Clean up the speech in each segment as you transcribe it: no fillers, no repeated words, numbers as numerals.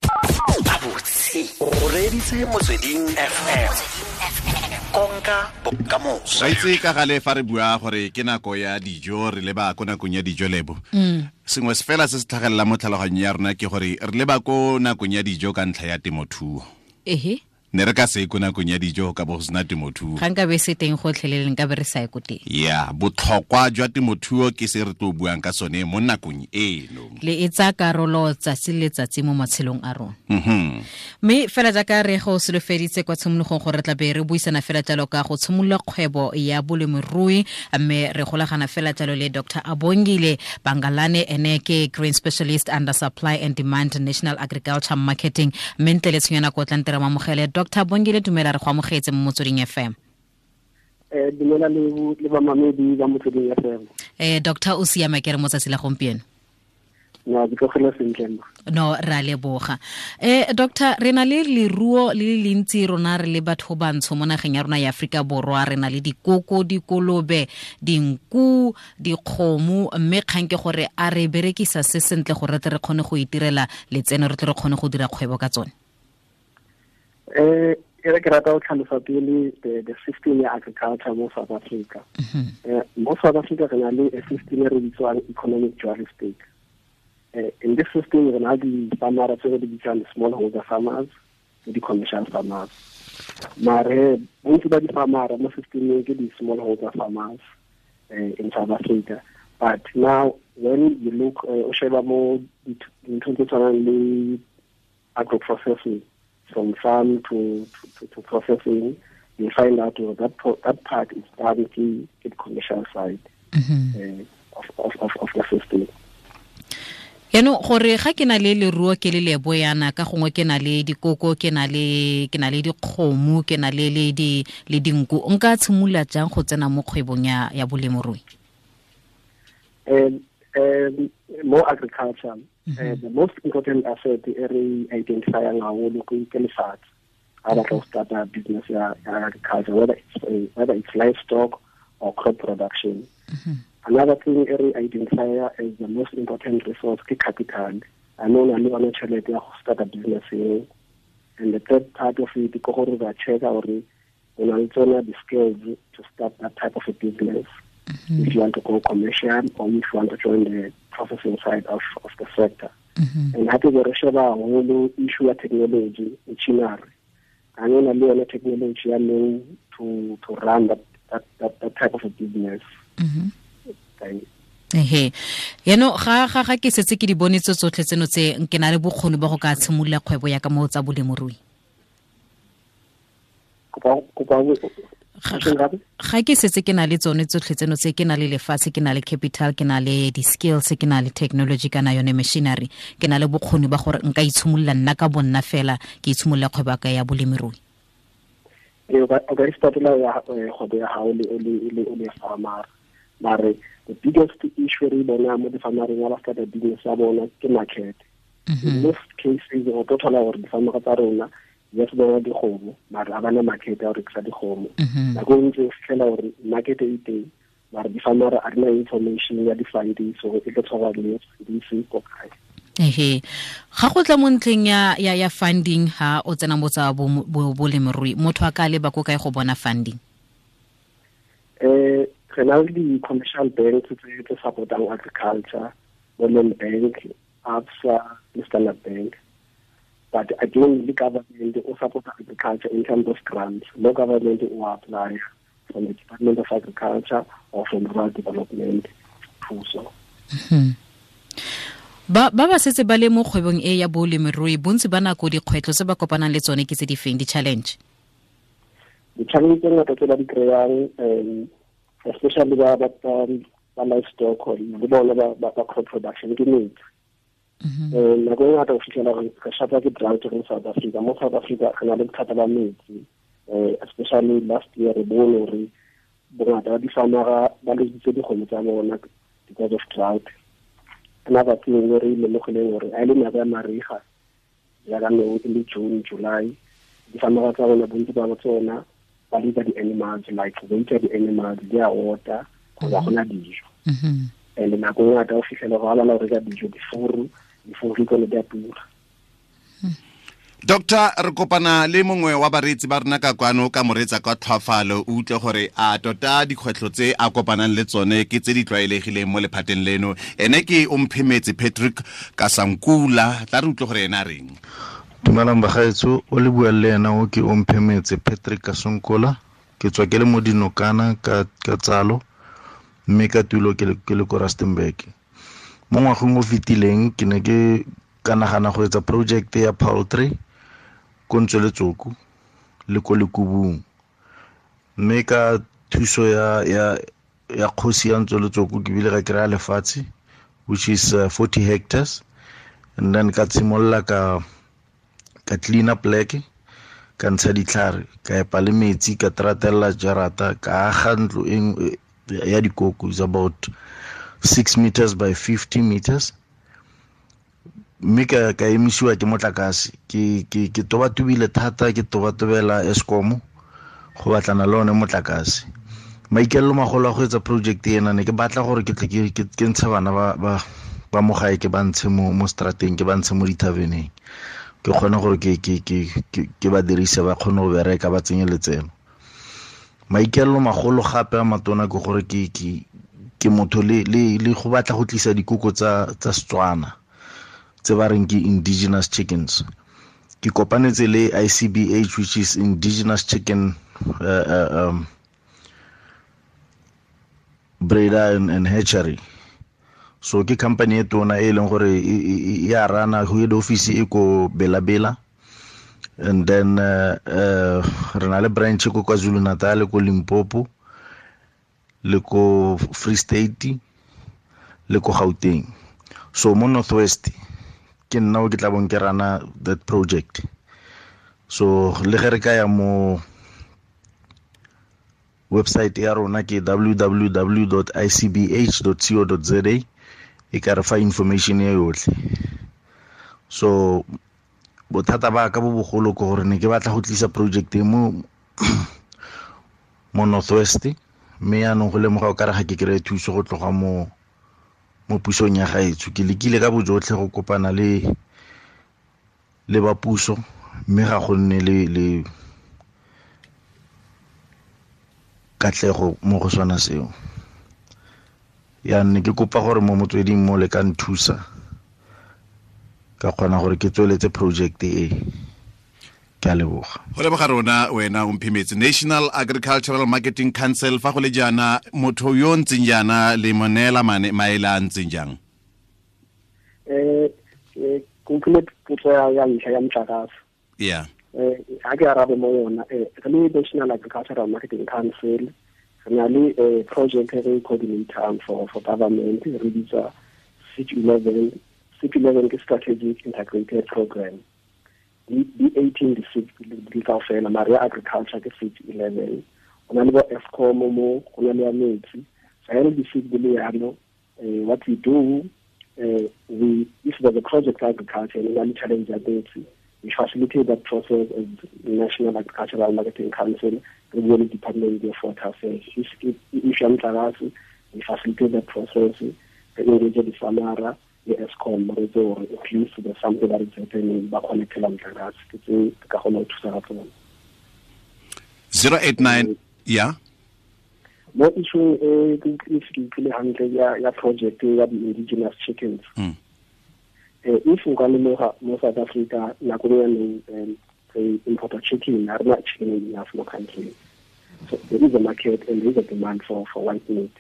Gabotse o reeditse Motsweding FM, konka bokamoso. Ra itse ka gale fa re bua gore ke nako ya dijo, re leba ko nakong ya dijo, Lebo. Sengwe se fela se se tlhagelelang mo tlhaloganyong ya rona ke gore re leba ko nakong ya dijo ka ntlha ya temothuo. Ne re ka se ko nakong ya dijo ka bo go sena temothuo. Ga nka be se teng gotlhelele, nka be re sa ye ko teng. Ya, botlhokwa jwa temothuo ke se re tlo buang ka sone mo nakong eno. Le e tsaya karolo tsatsi le letsatsi mo matshelong a rona. Mme fela jaaka re go solofeditse kwa tshimologong gore re tla be re buisana fela jalo ka go tshimolola kgwebo ya bolemirui, mme re golagana fela jalo le Dr Abongile Bangalane, ene ke Grain Specialist under Supply and Demand, National Agriculture Marketing. Mme ntle le tshenyo nako, tla nte re mamogele Dr Bongile. Dumela, re go amogetse mo Motsweding FM. Dumela le bamamedi ba Motsweding FM. Doctor, o siama ke re mo tsatsi la gompieno? No, ke tlogela sentle mma. No, re a leboga. Doctor, re na le leruo le le lentsi rona re le batho bantsho mo nageng ya rona ya Aforika Borwa. Re na le dikoko, dikolobe, dinku, dikgomo, mme kgang ke gore a re berekisa se sentle gore re tle re kgone go itirela letseno, re tle re kgone go dira kgwebo ka tsone? E re ke rata go tlhalosa pele the system ya agriculture mo South Africa. Mo South Africa re na le a system e re bitswang economic dual state. In this system re na le di-farmer tse re di bitswang smallholder farmers le di-commercial farmers. Mare bontsi ba di-farmer mo systemeng ke di-smallholder farmers in South Africa. But now when you look, o sheba mo dinthong tse tshwanang le agro-processing, from farm to processing, you find out that part is done ke the commercial side of the system. Yaanong gore ga ke na le leruo ke le Lebo yana, ka gongwe ke na le dikoko, ke na le dikgomo, ke na le dinku, nka tshimolola jang go tsena mo kgwebong ya bolemirui? Mo agriculture, the most important asset e re identifyang haholo ke lefatshe. Ha batla go starta business ya agriculture, whether it's livestock or crop production. Another thing e re identify as the most important resource ke capital. A no na le yona tšhelete ya go starta business eo? And the third part of it ke gore ba checka gore o na le tsona the skills to start that type of a business, if you want to go commercial or if you want to join the processing side of the sector. And hape be re sheba haholo issue ya technology, machinery. A na le yone technology ya nou to run that type of a business? Ehe, yaanong ga ke setse ke di bone tse tsotlhe tseno tse, ke na le bokgoni ba go ka tshimolola kgwebo ya ka mo tsa bolemirui? Ga ke setse ke na le tsone tsotlhe tseno tse, ke na le lefatshe, ke na le capital, ke na le di-skills, ke na le technology kana yone machinery, ke na le bokgoni ba gore nka itshimolola nna ka bonna fela, ke itshimolola kgwebo ka ya bolemirui? Ee, o ka istartela kgwebo ya gago le farmer, mare the biggest issue re bona mo di-farmereng ya ba starta business ya bona ke market. In most cases o tlo thola gore di-farmera tsa rona, yes, bona dikgomo, mare a bana market ya go rekisa dikgomo. Nako e ntse o fitlhela gore market e teng, mare di-farmera a rena information ya di-funding, so e tlo tshwarwa le di ko kae. Ehe, ga go tla mo ntlheng ya funding, ha o tsena mo tsa bolemirui, motho a ka leba ko kae go bona funding? Re na le di-commercial banks tse supportang agriculture, bo Land Bank, ABSA le Standard Bank. But again, the government o support agriculture in terms of grants. No, government o apply from the Department of Agriculture or from Rural Development thuso. Ba setse ba le mo kgwebong e ya bolemirui, bontsi ba nako dikgwetlho tse ba kopanang le tsone ke tse di feng, di-challenge? Di-challenge tse ngata tse ba di kry-ang, especially ba livestock le bone ba crop production, ke metsi. Nako e ngata o fitlhela gore re shapa ke drought mo South Africa. Mo South Africa re na le bothata ba metsi, especially last year re bone gore bongata ba di-farmera ba lositse dikgomo tsa bona because of drought. Another thing e re lemogileng gore a e le nako ya mariga, jaaka no e le June, July, di-farmera tsa rona, bontsi ba tsona ba leaver di-animals, like weight ya di-animals di a ota kgotsa gona dijo. And nako e ngata o fitlhela gore ga bana go reka dijo, difuru tsone di a tura. Doctor, re kopana le mongwe wa bareetsi ba rona ka kwano ka moreetsa ka tlhwafalo, o utlwe gore a tota dikgwetlho tse a kopanang le tsone ke tse di tlwaelegileng mo lephateng leno. Ene ke Omphemetse Patrick Kasankula, tla re utlwe gore ena a reng. Dumelang bagaetsho, o le bua le ena o ke Omphemetse Patrick Kasankola. Ke tswa ke le mo Dinokana ka tsalo, mme ka tulo ke le ko Rustenburg. Mo ngwageng o fetileng ke ne ke ka nagana go etsa project ya poultry ko Ntsweletsoko le ko Lekubung, mme ka thuso ya kgosi ya Ntsweletsoko ke bile ka kry-a lefatshe, which is 40 hectares, and then ka tshimolola ka clean up pleke, ka ntsha ditlhare, ka epa le metsi, ka tratella jarata, ka aga ntlo ya dikoko, is about 6 meters by 50 meters, mme ka emisiwa ke motlakase. Ke tobatobile thata, ke tobatobela Eskom go batlana le one motlakase. Maikaelelo magolo a go etsa project ena, ne ke batla gore ke tle ke ntshe bana ba mo gae, ke ba ntshe mo strateng, ke ba ntshe mo dithaveneng, ke kgone gore ke ba dirise, ba kgone go bereka, ba tsenye letseno. Maikaelelo magolo gape a matona ke gore ke motho le go batla go tlisa dikoko tsa Setswana tse ba reng ke indigenous chickens. Ke kopanetse le ICBH, which is Indigenous Chicken Breeder and Hatchery. So ke company e tona e leng gore e a rana, head office e ko Bela-Bela, and then re na le branch ko KwaZulu Natal, ko Limpopo, le ko Free State, le ko Gauteng. So mo Northwest ke nna o ke tla bong ke rana that project. So le ge re ka ya mo website ya rona ke www.icbh.co.za, e ka re fa information e yotlhe. So bothata ba ka bo bogolo ke gore ne ke batla go tlisa project e mo Northwest, mme yaanong go lemoga o kare ga ke kry-e thuso go tloga mo pusong ya gaetsho. Ke lekile ka bojotlhe go kopana le ba puso, mme ga go nne le katlego mo go sona seo. Yaanong ke kopa gore mo motsweding mo le ka nthusa, ka kgona gore ke tsweletse project e. Ke a leboga. Go leboga rona wena Omphemetse. National Agricultural Marketing Council, fa go le jaana motho yo ntseng jaana le mo neela maele a ntseng jang? Ke utlwile potso ya ntlha ya motlakase. Yeah. Ha ke arabe mo yona, re le National Agricultural Marketing Council re na le project e re coordinator for government, re bitsa SIG 11. SIG 11 ke Strategic Integrated Program. Di 18 di SIG di kaofela, mare ya agriculture ke SIG 11. Go na le bo Eskom mo, go na le ya metsi. So ha re di SIG di le yalo, what we do, we if there's a project agriculture and we challenge ya metsi, we facilitate that process as National Agricultural Marketing Council, re bue le Department of Water Affairs. If ya motlakase, we facilitate that process, re engage the farmer le Eskom, re tse gore at least there's something that is happening, ba connectela motlakase. Ke tse ka kgona go thusa ka tsone. 089, yeah. Mo issue e ke utlwile hantle ya project ya di-indigenous chickens. If nka lemoga mo South Africa nako e neng re importa chicken, ha rena chicken enough mo country. So there is a market and there is a demand for white meat.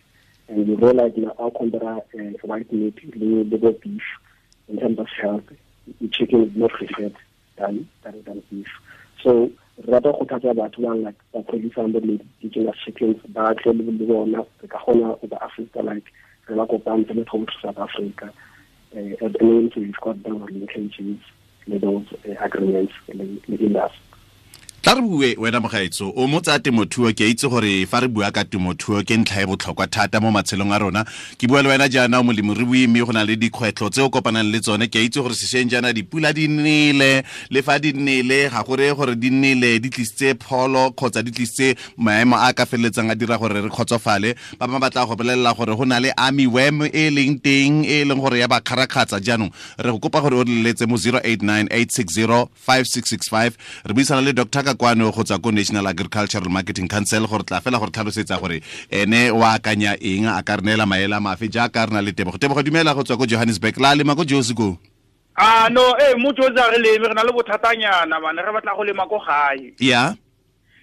And we realize now our compare white meat le beef in terms of health, the chicken is more preferred than beef. So rata go thatsa batho ba like ba producer bo indigenous chickens ba tle le bona re ka kgona go ba assista, like re ba kopantse le to South Africa. At the moment we've got those linkages, those agreements le industry. Tla re bue wena mogaetso o mo tsa temothuo, ke itse gore fa re bua ka temothuo ke ntlha e botlhokwa thata mo matshelong a rona. Ke bua le wena jaana o molemirui, mme go na le dikgwetlho tse o kopanang le tsone. Ke itse gore sešweng jaana dipula di nele, le fa di nele ga go reye gore di nele di tlisitse pholo kgotsa di tlisitse maemo a ka feleletsang a dira gore re kgotsofale. Ba bangwe ba tla go bolelela gore go na le army worm e leng teng e leng gore ya ba kgarakgatsa. Jaanong re go kopa gore o re leletse mo 0898605665. Re buisana le Dr. Kakwano go tswa ko National Agricultural Marketing Council gore tla fela gore tlhalosetsa gore ene o akanya eng, a ka re neela maele a mafe jaaka re na le Tebogo. Tebogo, dumela go tswa ko Johannesburg. La lema ko Josi ko? Ah no, mo Josi a re leme, re na le bothatanyana bana, re batla go lema ko gae. Yeah.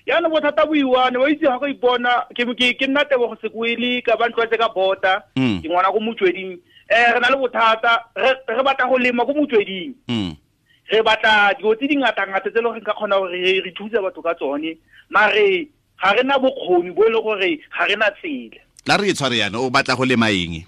Yana bothata bo iwane, wa itse ga go ipona ke nna Tebogo Sekwele ka ba ntlwetse ka bota, ke ngwana ko Motsweding. Re na le bothata, re batla go lema ko Motsweding. Re batla dilo tse di ngata-ngata tse e leng gore ka kgona gore re thuse batho ka tsone, mare ga re na bokgoni bo e leng gore ga re na tsela. Tla re e tshware yana, o batla go lema eng?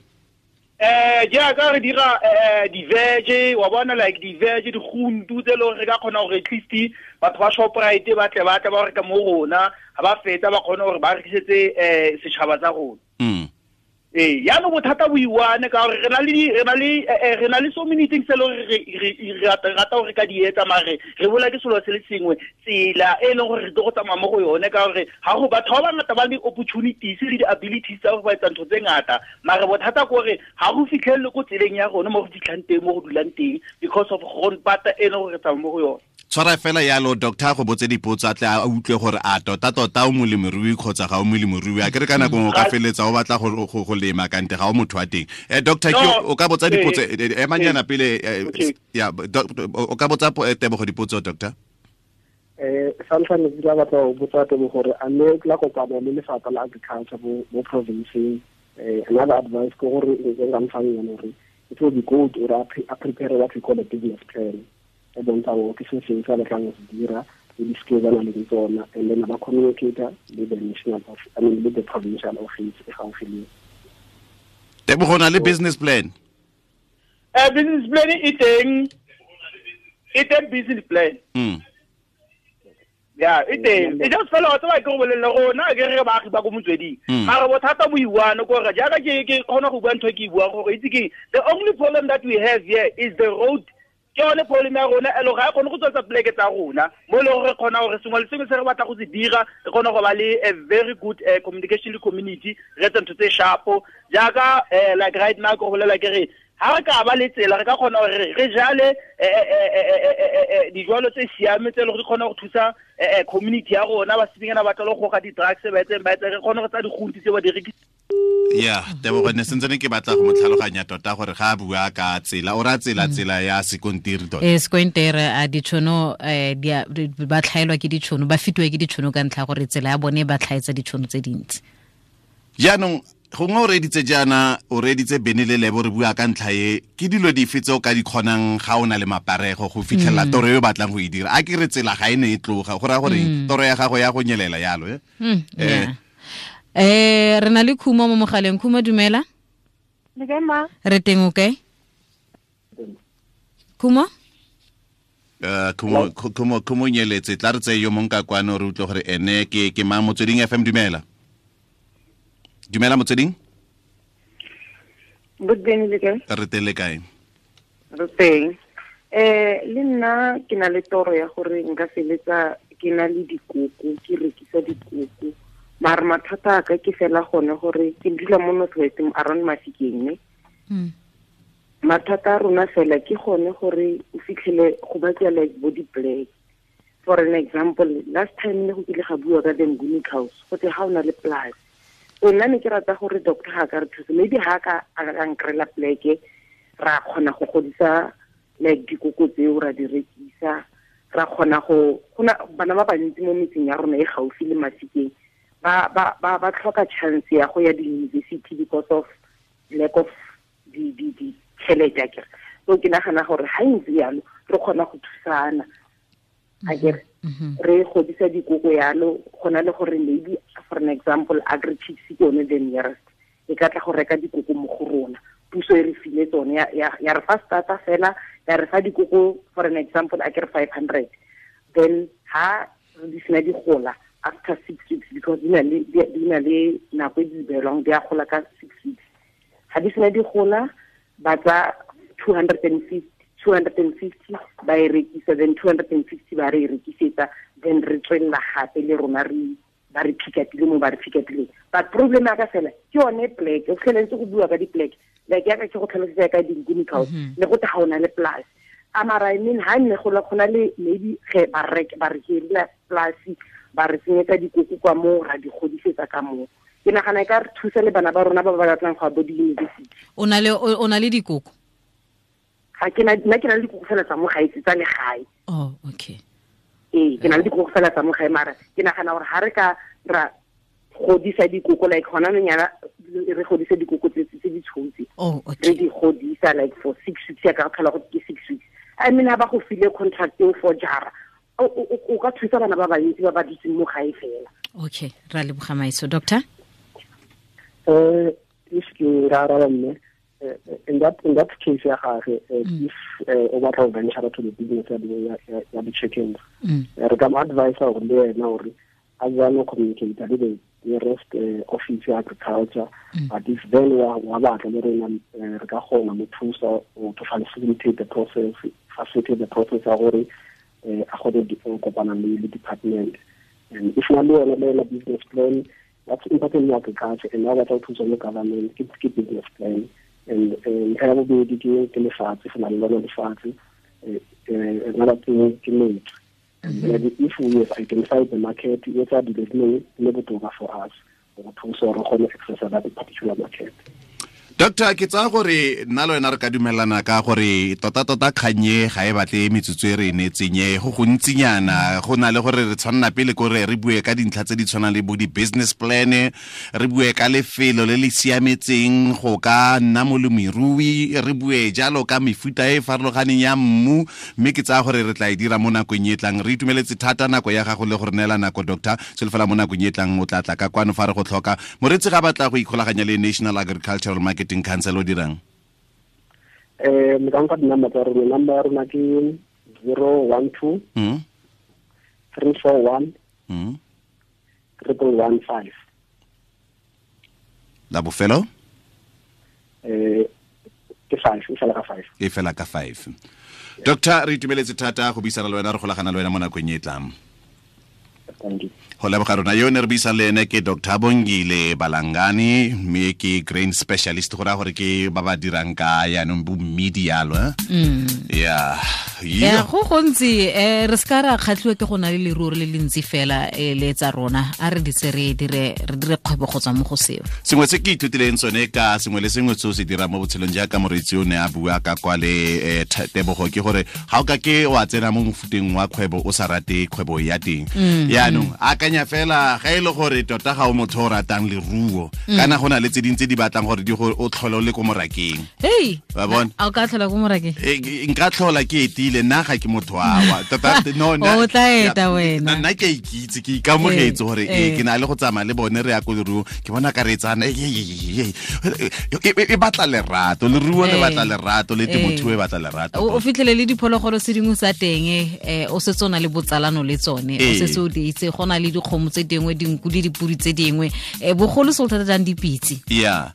Jaaka re dira di-veg, wa bona like di-veg, diguntu tse e leng gore re ka kgona gore at least batho ba Shoprite ba tle ba reka mo rona, ga ba fetsa ba kgone gore ba rekisetse setšhaba tsa rona. Yaanong bothata bo iwane ka gore re na le so many things tse e leng gore re rata gore ka di etsa, mare re bola ke selo se le sengwe, tsela e leng gore re tlo go tsamaya mo go yone, ka gore ga go batho ba bangata ba le opportunities le di-abilities tsa gore ba etsa ntho tse ngata, mare bothata ke gore ga go fitlhelele ko tseleng ya rona mo go fitlhang teng, mo go dulang teng, because of grondpata e leng gore re tsamaya mo go yone. Tshwara fela yalo doctor go botse dipotso a tle a utlwe gore a tota o molemirui kgotsa ga o molemirui. A ke re ka nako nngwe o ka feletsa o batla go lema kante ga o motho wa teng. Doctor, ke o ka botsa dipotso emanyana pele ya o ka botsa Tebogo dipotso doctor. Santlha ne ke batla go botsa Tebogo gore a ne la kopana le lefapha la agriculture mo province. Another advice ke gore nka mfang yone gore it will be good or a prepare what we call a business plan. E bontsha gore ke se seng se a batlang go se dira le di-skills a nang le tsona, and then ba communicator le the national office, I mean le the provincial office e gaufi le. Tebogo, na le business plan? Business plan e teng business plan. Yeah, e teng. E just fela wa tseba ke go bolelle rona ke re baagi ba ko Motsweding. Mare bothata bo iwane ko gore jaaka ke kgona go bua ntho e ke e buang gore itse ke the only problem that we have here is the road. Ke yone problem ya rona e le ga e kgone go tswetsa poleke tsa rona mo e leng gore re kgona gore sengwe le sengwe se re batla go se dira re kgone go ba le a very good communication le community, re etse ntho tse sharpo jaaka like right now ke go bolela ke re ha re ka ba le tsela re ka kgona gore re jale dijalo tse siame tse e leng gore di kgona go thusa community ya rona, ba senyana ba tla go goga di-drugs ba etseng ba etse re kgone go tsa digunti tse ba di rekisa. Yeah, Tebogo ne sentse ne ke batla go mo tlhaloganya tota gore ga a bua ka tsela o ra tsela ya sekontiri tota. Sekontiri a ditšhono ba tlhaelwa ke ditšhono, ba fetiwa ke ditšhono ka ntlha gore tsela ya bone ba tlhaetsa ditšhono tse dintsi. Jaanong gongwe o reeditse jaana, o reeditse Bene le Lebo re bua ka ntlha e, ke dilo dife tse o ka di kgonang ga o na le maparego go fitlhelela toro e o batlang go e dira? A ke re tsela ga e ne e tloga, go raya gore toro ya gago ya go nyelela yalo. Re na le Khumo mo mogaleng. Khumo, dumela. Le kae ma? Re teng, o kae? Khumo? Khumo nyeletse, tla re tseye yo mongwe ka kwano re utlwe gore ene ke mang. Motsweding FM, dumela. Dumela Motsweding. Boteng le kae? Re teng, le kae? Re teng. Le nna ke na le toro ya gore nka feletsa ke na le dikoko, ke rekisa dikoko. Mare mathata a ka ke fela gone gore ke dula mo North West around Mafikeng ne. Mathata a rona fela ke gone gore o fitlhele go batla like bo di-black. For an example, last time ne go kile ga bua ka the Nguni House, go te ga o na le plus. So nna ne ke rata gore doctor ga ka re thusa, maybe ga ka a ka nkrela pleke ra kgona go godisa like dikoko tseo ra di rekisa, ra kgona go gona bana ba bantsi mo metseng ya rona e gaufi le Mafikeng ba tlhoka chance ya go ya di-university because of lack of di tšhelete akere. So ke nagana gore ga ntse yalo re kgona go thusana akere, re godisa dikoko yalo, gona le gore maybe for an example Agri-Chicks ke yone the nearest e ka tla go reka dikoko mo go rona, puso e re file tsone ya re fa starter fela, ya re fa dikoko for an example akere 500, then ha di sena di gola after 6 weeks, because di na le nako e di beelwang, di a gola ka 6 weeks. Ga di sena di gola, ba tsa 250 ba e rekisa, then 250 ba re e rekisetsa, then re tswelela gape le rona re ba re pick-upile mo ba re pick-upileng. But problem ya ka fela ke yone plek, o fitlheletse go bua ka di-plek, like yaka ke go tlhalosetsa ka di-nkuni house, le go te ga o na le polase. Amara, I mean, ha nne go na le maybe ge ba re hirela polase, ba re tsenyetsa dikoko kwa moo, ra di godisetsa ka moo. Ke nagana e ka re thusa le bana ba rona ba ba batlang go ya bo di-university. O na le dikoko? Ga ke na, nna ke na le dikoko fela tsa mo gae, tsa legae. Oh, okay. Ee, ke na le dikoko fela tsa mo gae, mara ke nagana gore ga re ka ra godisa dikoko, like gona nonyana re godisa dikoko tse di tshotse. Oh, okay. Re di godisa like for 6 weeks, ya ka tlhola go ke 6 weeks. I mean, ha ba go file contract eo for jara, o ka thusa bana ba bantsi ba ba dutseng mo gae fela. Okay, ra leboga Maiso. Doctor? If ke ra araba mme, in that case ya gage, if o batla go venture to the business ya di-chickens, re ka mo advise gore le wena gore a jalo communicate le the nearest office ya agriculture, but if then wa batla le rena re ka kgona mo thusa to facilitate the process ya gore a kgone go kopana le department. And if na le yona business plan, that's important in agriculture, and now batla go thusa le government ke business plan. And ntlha ya bobedi ke lefatshe, go na le lona lefatshe, another thing ke metsi. And if we have identified the market, e etsa dilo di le botoka for us go thusa gore re kgone access that particular market. Doctor, ke tsaya gore nna le wena re ka dumelana ka gore tota-tota kganye ga e batle metsotso e re e neetseng e go gontsinyana, go na le gore re tshwanela pele kore re bue ka dintlha tse di tshwanang le bo di-business plan, re bue ka lefelo le le siametseng go ka nna molemirui, re bue jalo ka mefuta e farologaneng ya mmu, mme ke tsaya gore re tla e dira mo nakong e tlang. Re itumeletse thata nako ya gago le go re neela nako, Doctor. Solofela mo nakong e tlang o tla tla ka kwano fa re go tlhoka. Moreetsi ga batla go ikgolaganya le National Agricultural Marketing Council o dirang? Le ka nka di-number tsa rona. Number ya rona ke 012 341 1115. La bofelo? Ke 5, e fela ka 5. E fela ka 5. Doctor, re itumeletse thata go buisana le wena, re golagana le wena mo nakong e tlang. Go leboga rona. Yo ne re buisang le ene ke Dr. Bongile Balangane, mme ke grain specialist, go raya gore ke ba ba dirang ka yaanong bo mmidi yalo. Yeah. Ya go gontsi re se ka ra kgatlhiwa ke go na le leruo le le ntsi fela le tsa rona, a re ditse re dire kgwebo go tswa mo go seo. Sengwe se ke ithutileng sone ka sengwe le sengwe se o se dirang mo botshelong jaaka moreetsi o ne a bua ka kwa le Tebogo, ke gore ga o ka ke wa tsena mo mofuteng wa kgwebo o sa rate kgwebo ya teng. Yaanong akanya fela ga e le gore tota ga o motho o ratang leruo, kana go na le tse dingwe tse di batlang gore di go o tlhole o le ko morakeng. Hey, wa bona? A o ka tlhola ko morakeng? Nka tlhola ke etile, nna ga ke motho awa. Tota no o tla eta wena. Nna ke ikitse, ke ikamogetse gore ke na le go tsamaya le bone re ya ko leruo, ke bona ka re tsana e batla lerato, leruo le batla lerato, le temothuo e batla lerato. O fitlhele le diphologolo se dingwe tsa teng, o setse o na le botsalano le tsone, o setse o di itse, go na le dikgomo tse dingwe, dinku le dipudi tse dingwe, bogolo se o thata jang dipitse. Yeah.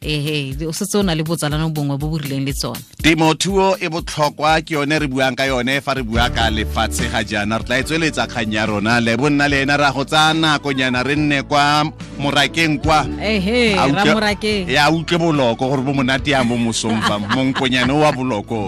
O setse o na le botsalano bongwe bo bo rileng le tsone. Temothuo e botlhokwa, ke yone re buang ka yone fa re bua ka lefatshe ga jaana. Re tla e tsweletsa kgang ya rona le bonna le ena ra go tsaya nakonyana re nne kwa morakeng kwa. Ra morakeng. Ya utlwe boloko gore bo monate yang mo mosong fa monkonyane wa boloko.